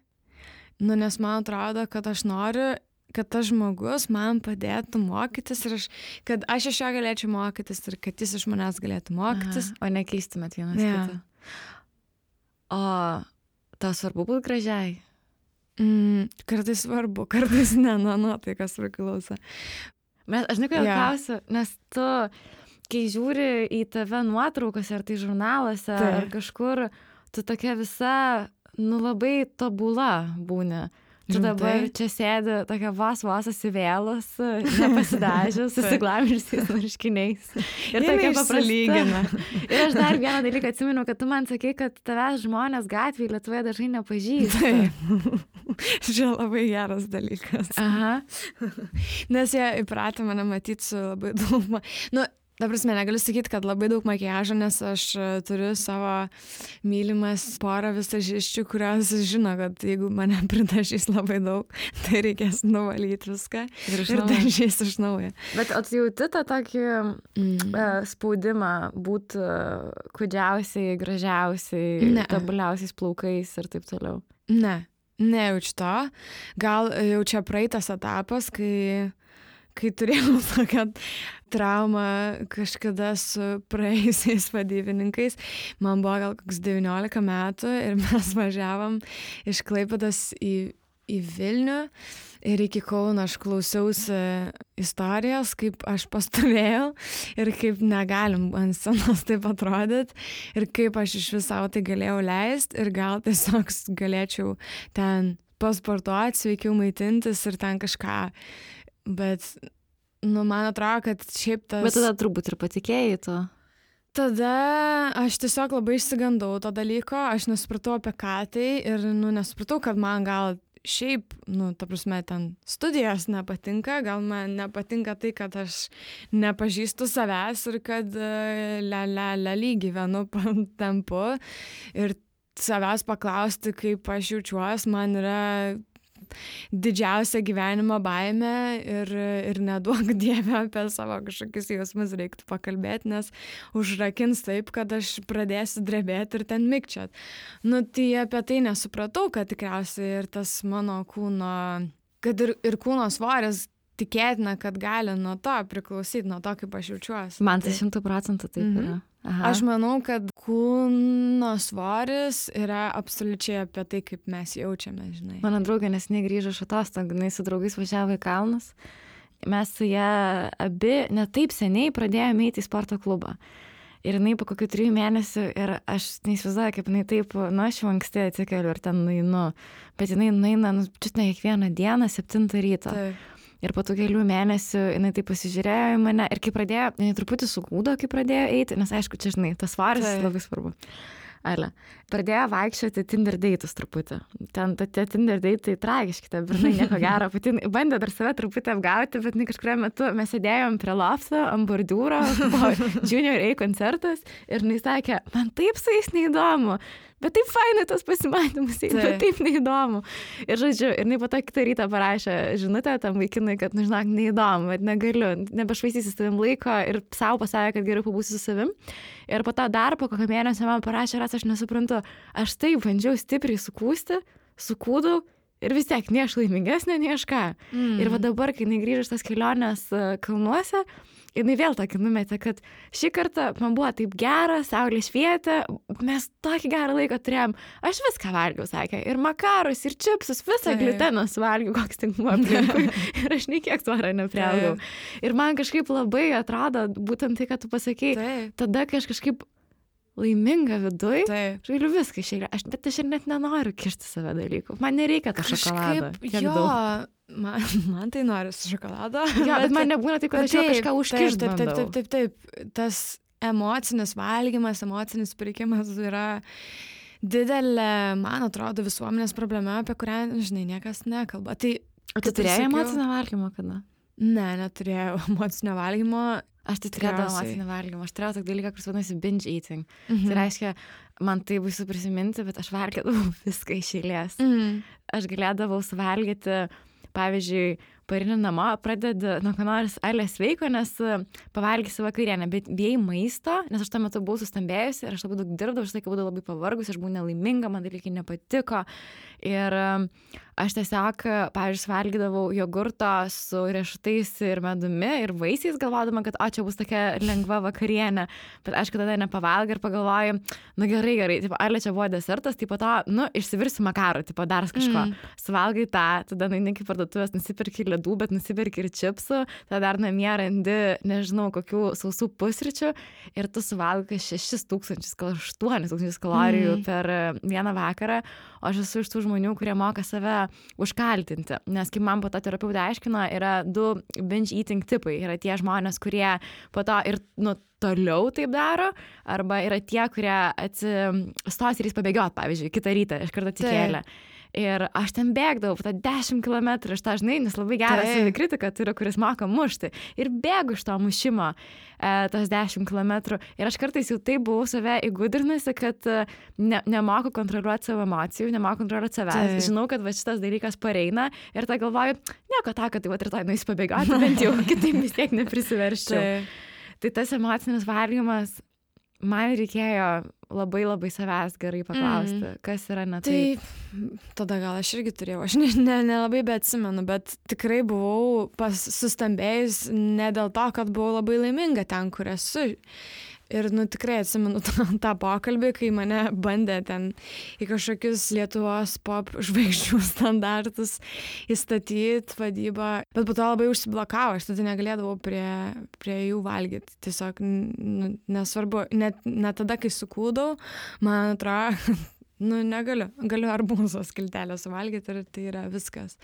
nes man atrodo, kad aš noriu, kad tas žmogus man padėtų mokytis ir kad aš iš jo galėčiau mokytis ir kad jis iš manęs galėtų mokytis. O nekeistumėt vienas kitą. O tau svarbu būti gražiai? Kartais svarbu, kartais ne, tai kas priklauso. Aš žinai, kodėl klausiu, nes tu, kai žiūri į tave nuotraukose, ar tai žurnaluose, ar kažkur, tu tokia visa, labai tobula būni. Tu dabar čia sėdi tokia vos įsivėlus, nepasidažius, susiglamžiusiais marškiniais. Ir tokia paprasta. Ir aš dar vieną dalyką atsimenu, kad tu man sakei, kad tavęs žmonės gatvėje Lietuvoje dažnai nepažįsta. Čia labai geras dalykas. Aha. Nes jie įpratę mane matyti su labai daug... Ta prasme, negaliu sakyti, kad labai daug makiažo, nes aš turiu savo mylimas porą visažiščių, kurios žino, kad jeigu mane pridažys labai daug, tai reikės nuvalyti viską ir dažys iš naujo. Bet jauti tą tokį spaudimą būti kūdžiausiai, gražiausiai, tobuliausiais plaukais ir taip toliau? Nejaučiu to. Gal jau čia praeitas etapas, kai turėjau tokią traumą kažkada su praėjusiais vadybininkais. Man buvo gal koks 19 metų ir mes važiavom iš Klaipėdos į Vilnių ir iki Kauno aš klausiausi istorijos, kaip aš pastovėjau ir kaip negalim ant scenos taip atrodyti ir kaip aš iš viso tai galėjau leisti ir gal tiesiog galėčiau ten pasportuoti, sveikiau maitintis ir ten kažką. Bet, man atrodo, kad šiaip tas... Bet tada turbūt ir patikėjai to. Tada aš tiesiog labai išsigandau to dalyko, aš nesupratau apie ką tai ir, nesupratau, kad man gal šiaip, ta prasme, ten studijos nepatinka, gal man nepatinka tai, kad aš nepažįstu savęs ir kad gyvenu tempu ir savęs paklausti, kaip aš jaučiuosi, man yra didžiausia gyvenimo baimė ir neduok Dieve apie savo kažkokius jausmus reiktų pakalbėti, nes užrakins taip, kad aš pradėsiu drebėti ir ten mikčiot. Tai apie tai nesupratau, kad tikriausiai ir tas mano kūno, kad ir kūno svoris tikėtina, kad gali nuo to priklausyti, nuo to, kaip aš jaučiuosi. Man tai 100% taip yra. Aha. Aš manau, kad kūno svoris yra absoliučiai apie tai, kaip mes jaučiame, žinai. Mano draugė neseniai grįžo iš atostogų, jinai su draugais važiavo į kalnus. Mes su ją abi ne taip seniai pradėjome eiti į sporto klubą. Ir jinai po kokių 3 mėnesių, ir aš neįsivaizduoju, kaip jinai taip, aš jau anksti atsikeliu ir ten nueinu. Bet jinai nueina, čiut ne kiekvieną dieną, 7 ryto. Taip. Ir po tų kelių mėnesių jinai taip pasižiūrėjo į mane ir kai pradėjo, jinai truputį sukūdo, kai pradėjo eiti, nes aišku, čia žinai, tas svaris labai svarbu. Pradėjo vaikščioti Tinder date'us truputį. Ten tie Tinder date'ai tragiški, ta bernai nieko gero. Pati bandė dar save truputį apgauti, bet kažkuriuo metu mes sėdėjom prie lofto, ant bordiūro, buvo Junior A koncertas ir jinai sakė, man taip su jais neįdomu. Bet taip fainai tas pasimatymus, bet taip neįdomu. Ir žodžiu, ir jinai po to kitą rytą parašė žinutę tam vaikinui, kad, žinok, neįdomu, bet negaliu, nebešvaistysi savim laiko ir savo pasakė, kad geriau pabūsiu su savim. Ir po to dar po kokio mėnesio man parašė, aš nesuprantu, aš taip bandžiau stipriai sukūdau ir vis tiek ne aš laimingesnė, ne aš ką. Ir va dabar, kai jinai grįžo iš tas kelionės kalnuose, jinai vėl tokį numetė, kad šį kartą man buvo taip gera, saulė švietė, mes tokį gerą laiką turėjom, aš viską valgiau, sakė, ir makarus, ir čipsus, visą gliuteną suvalgiau, koks tik buvo aplinkui, ir aš nei kiek svorio nepriaugau. Ir man kažkaip labai atrodo, būtent tai, kad tu pasakei, tada, kai aš kažkaip laiminga viduj, žailiu viską išėlė, bet aš ir net nenoriu kišti save dalykų, man nereikia to šokolado. Man tai nori su šokolado. Bet man nebūna taip, kad aš jau kažką užkišdavau. Taip. Tas emocinis valgymas, emocinis pirkimas yra didelė, man atrodo, visuomenės problema, apie kurią, žinai, niekas nekalba. O tu turėjai emocinio valgymo kada? Ne, neturėjau emocinio valgymo. Aš tai turėjau emocinio valgymo. Aš turėjau tokį dalyką, kuris vadinasi binge eating. Tai reiškia, man tai baisu prisiminti, bet aš valgydavau viską iš eilės. Aš galėdavau suvalgyti, pavyzdžiui, parini namo, pradedi nuo ko nors sveiko, nes pavalgysi vakarienę, bet bijai maisto, nes aš tuo metu buvau sustambėjusi ir aš labai daug dirbdavau, aš laiką būdavau labai pavargus, aš buvau nelaiminga, man dalykai nepatiko. Ir aš tiesiog, pavyzdžiui, valgydavau jogurto su riešutais ir medumi ir vaisiais, galvodama, kad čia bus tokia lengva vakarienė. Bet aišku, tada nepavalgai ir pagalvoju, gerai, tipo, čia buvo desertas, tai po to, išsivirsiu makarų, tipo, dar kažko. Suvalgai tą, tada nueini iki parduotuvės, nusipirki ledų, bet nusipirki ir čipsų, tada dar namie randi, nežinau, kokių sausų pusryčių ir tu suvalgai 6,000, gal 8,000 kalorijų per vieną vakarą, o aš esu iš tų žmonių, kurie moka save užkaltinti, nes kaip man po to terapeutė aiškino, yra 2 binge eating tipai, yra tie žmonės, kurie po to ir toliau taip daro, arba yra tie, kurie atsistos ir jis pabėgiot, pavyzdžiui, kitą rytą, iš karto atsikėlė. Ir aš ten bėgdavau, po 10 kilometrų, aš tą žinai, nes labai geras savikritika turiu, kuris moka mušti. Ir bėgu iš to mušimo tos 10 kilometrų. Ir aš kartais jau taip buvau save įgudrinusi, kad nemoku kontroliuoti savo emocijų, nemoku kontroliuoti savęs. Žinau, kad va šitas dalykas pareina ir tą galvoju, nieko tą, kad tai va rytoj nueisiu pabėgoti, bent jau kitaip vis tiek neprisiverščiau. Tai tas emocinis valgymas, man reikėjo labai savęs gerai paklausti, kas yra ne taip. Tai tada gal aš irgi turėjau, aš nelabai beatsimenu, bet tikrai buvau sustambėjus ne dėl to, kad buvau labai laiminga ten, kur esu. Ir tikrai atsimenu tą pokalbį, kai mane bandė ten į kažkokius Lietuvos pop žvaigždžių standartus įstatyti vadybą, bet po to labai užsiblokavo, aš tada negalėdavau prie jų valgyti. Tiesiog nesvarbu, net tada, kai sukūdau, man atrodo, galiu arbūzo skiltelę suvalgyti ir tai yra viskas.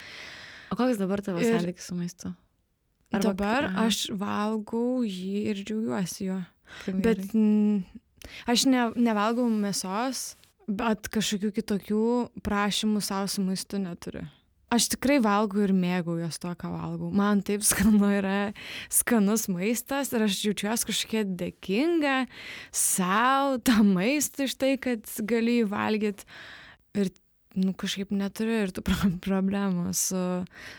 O koks dabar tavo santykis su maistu? Dabar aš valgau jį ir džiaugiuosi juo. Bet aš nevalgau mėsos, bet kažkokių kitokių prašymų savo su maistu neturiu. Aš tikrai valgau ir mėgaujuos to, ką valgau. Man taip skanu yra skanus maistas ir aš jaučiuosi kažkiek dėkinga savo tą maistą iš tai, kad galiu jį valgyti. Ir kažkaip neturiu ir tų problemų su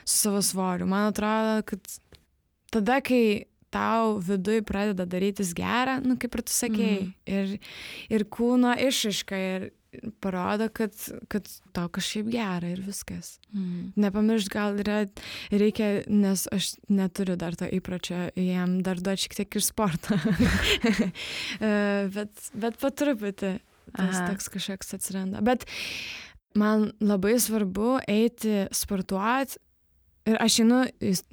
savo svoriu. Man atrodo, kad tada, kai tau viduj pradeda darytis gera, kaip ir tu sakėjai, ir kūno išraiška ir parodo, kad tau kažkaip gera ir viskas. Nepamiršt, gal reikia, nes aš neturiu dar to įpročio, jam dar duoti šiek tiek ir sportą. bet po truputį tas toks kažkoks atsiranda. Bet man labai svarbu eiti sportuoti. Ir aš einu,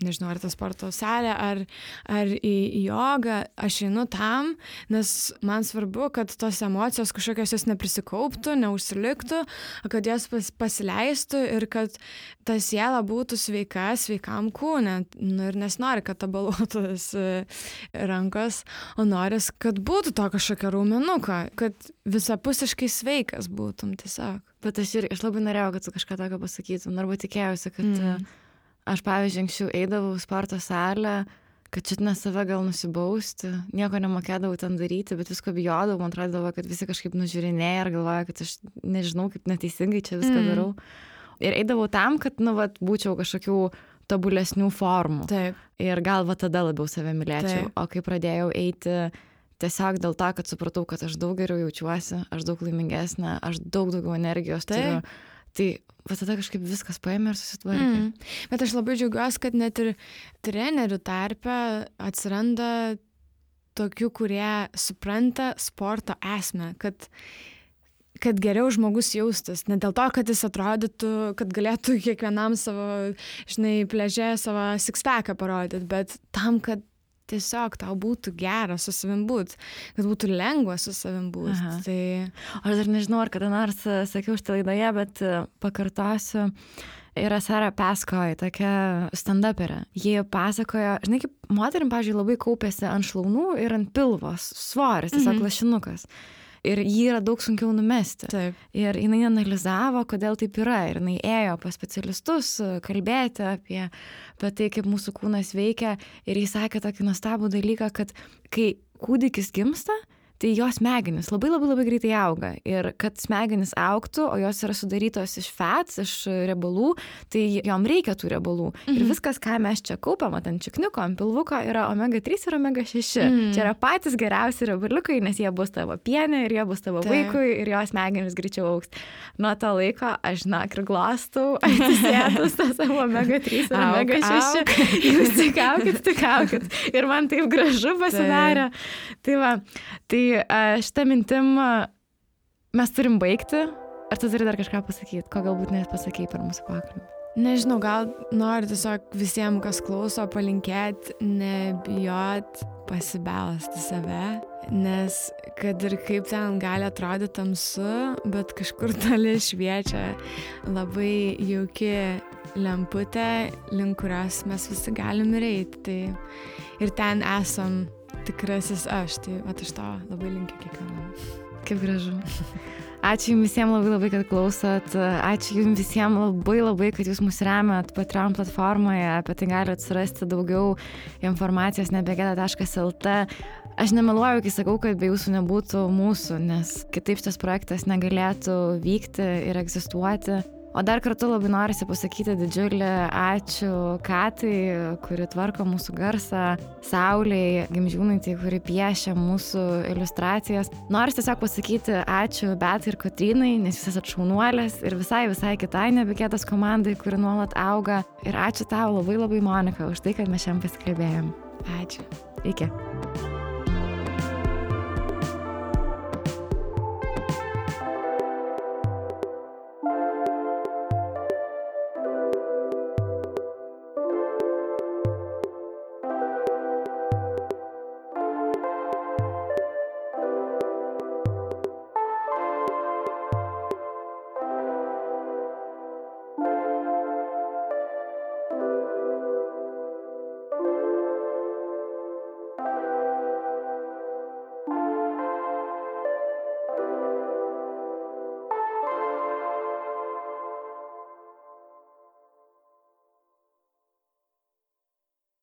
nežinau, ar tą sporto salę, ar į jogą, aš einu tam, nes man svarbu, kad tos emocijos kažkokios jos neprisikauptų, neužsiliktų, kad jos pasileistų ir kad ta siela būtų sveikam kūne. Ir nesinori, kad tabaluotus rankos, o noris, kad būtų to kažkokio raumenuko, kad visapusiškai sveikas būtum tiesiog. Bet aš labai norėjau, kad tu kažką tokio pasakytum, arba tikėjausi, kad... Aš, pavyzdžiui, anksčiau eidavau į sporto salę, kad šitinę save gal nusibausti, nieko nemokėdavau ten daryti, bet visko bijodavau, man atrodavo, kad visi kažkaip nužiūrinėja ir galvoja, kad aš nežinau, kaip neteisingai čia viską darau. Ir eidavau tam, kad, būčiau kažkokių tobulesnių formų. Taip. Ir gal tada labiau save mylėčiau. Taip. O kai pradėjau eiti tiesiog dėl to, kad supratau, kad aš daug geriau jaučiuosi, aš daug laimingesnė, aš daug daugiau energijos turiu. Tai tada kažkaip viskas paėmė ir susitvarkė. Bet aš labai džiaugiuosi, kad net ir trenerių tarpe atsiranda tokių, kurie supranta sporto esmę, kad geriau žmogus jaustis. Ne dėl to, kad jis atrodytų, kad galėtų kiekvienam savo, pliaže savo six-packą parodyti, bet tam, kad tiesiog tau būtų gera su savim būt, kad būtų lengva su savim būt. Tai... Aš dar nežinau, ar kada nors sakiau šitą laidoje, bet pakartosiu. Yra Sarah Paskoj, tokia stand-uperė. Jie pasakojo, kaip moterim, pavyzdžiui, labai kaupėsi ant šlaunų ir ant pilvos svoris, tiesiog lašinukas. Ir jį yra daug sunkiau numesti. Taip. Ir jinai analizavo, kodėl taip yra. Ir jinai ėjo pas specialistus kalbėti apie tai, kaip mūsų kūnas veikia. Ir jis sakė tokį nuostabų dalyką, kad kai kūdikis gimsta, tai jos smegenys labai labai labai greitai auga. Ir kad smegenys augtų, o jos yra sudarytos iš fats, iš riebalų, tai jom reikia tų riebalų. Ir viskas, ką mes čia kaupiam, ant čikniuko, ant pilvuko, yra omega-3 ir omega-6. Čia yra patys geriausi riebaliukai, nes jie bus tavo pienė ir jie bus tavo vaikui ir jos smegenys greičiau augs. Nuo to laiko aš, ir glostau, atsisėdus tą savo omega-3 ir omega-6. Jūs tik aukit. Ir man taip gražu pasidarė. Tai va, šitą mintim mes turim baigti. Ar tu turi dar kažką pasakyti, ko galbūt nepasakei per mūsų pokalbį? Nežinau, gal noriu tiesiog visiems, kas klauso, palinkėti, nebijot pasibelsti save, nes kad ir kaip ten gali atrodyti tamsu, bet kažkur toli šviečia labai jauki lemputė, link kurios mes visi galim eiti. Tai ir ten esam tikrasis aš, tai aš to labai linkiu kiekvienam. Kaip gražu. Ačiū jums visiems labai labai, kad klausot. Ačiū jums visiems labai labai, kad jūs mus remiat Patreon platformoje. Apie tai galite surasti daugiau informacijos nebegeda.lt. Aš nemeluoju, kai sakau, kad be jūsų nebūtų mūsų, nes kitaip šitas projektas negalėtų vykti ir egzistuoti. O dar kartu labai norisi pasakyti didžiulį ačiū Katai, kuri tvarko mūsų garsą, Saulei Gimžiūnaitei, kuri piešia mūsų iliustracijas. Norisi tiesiog pasakyti ačiū Betai ir Kotrynai, nes jūs esat šaunuolės ir visai kitai Nebegėdos komandai, kuri nuolat auga. Ir ačiū tau labai labai, Monika, už tai, kad mes šiandien pasikalbėjom. Ačiū. Iki.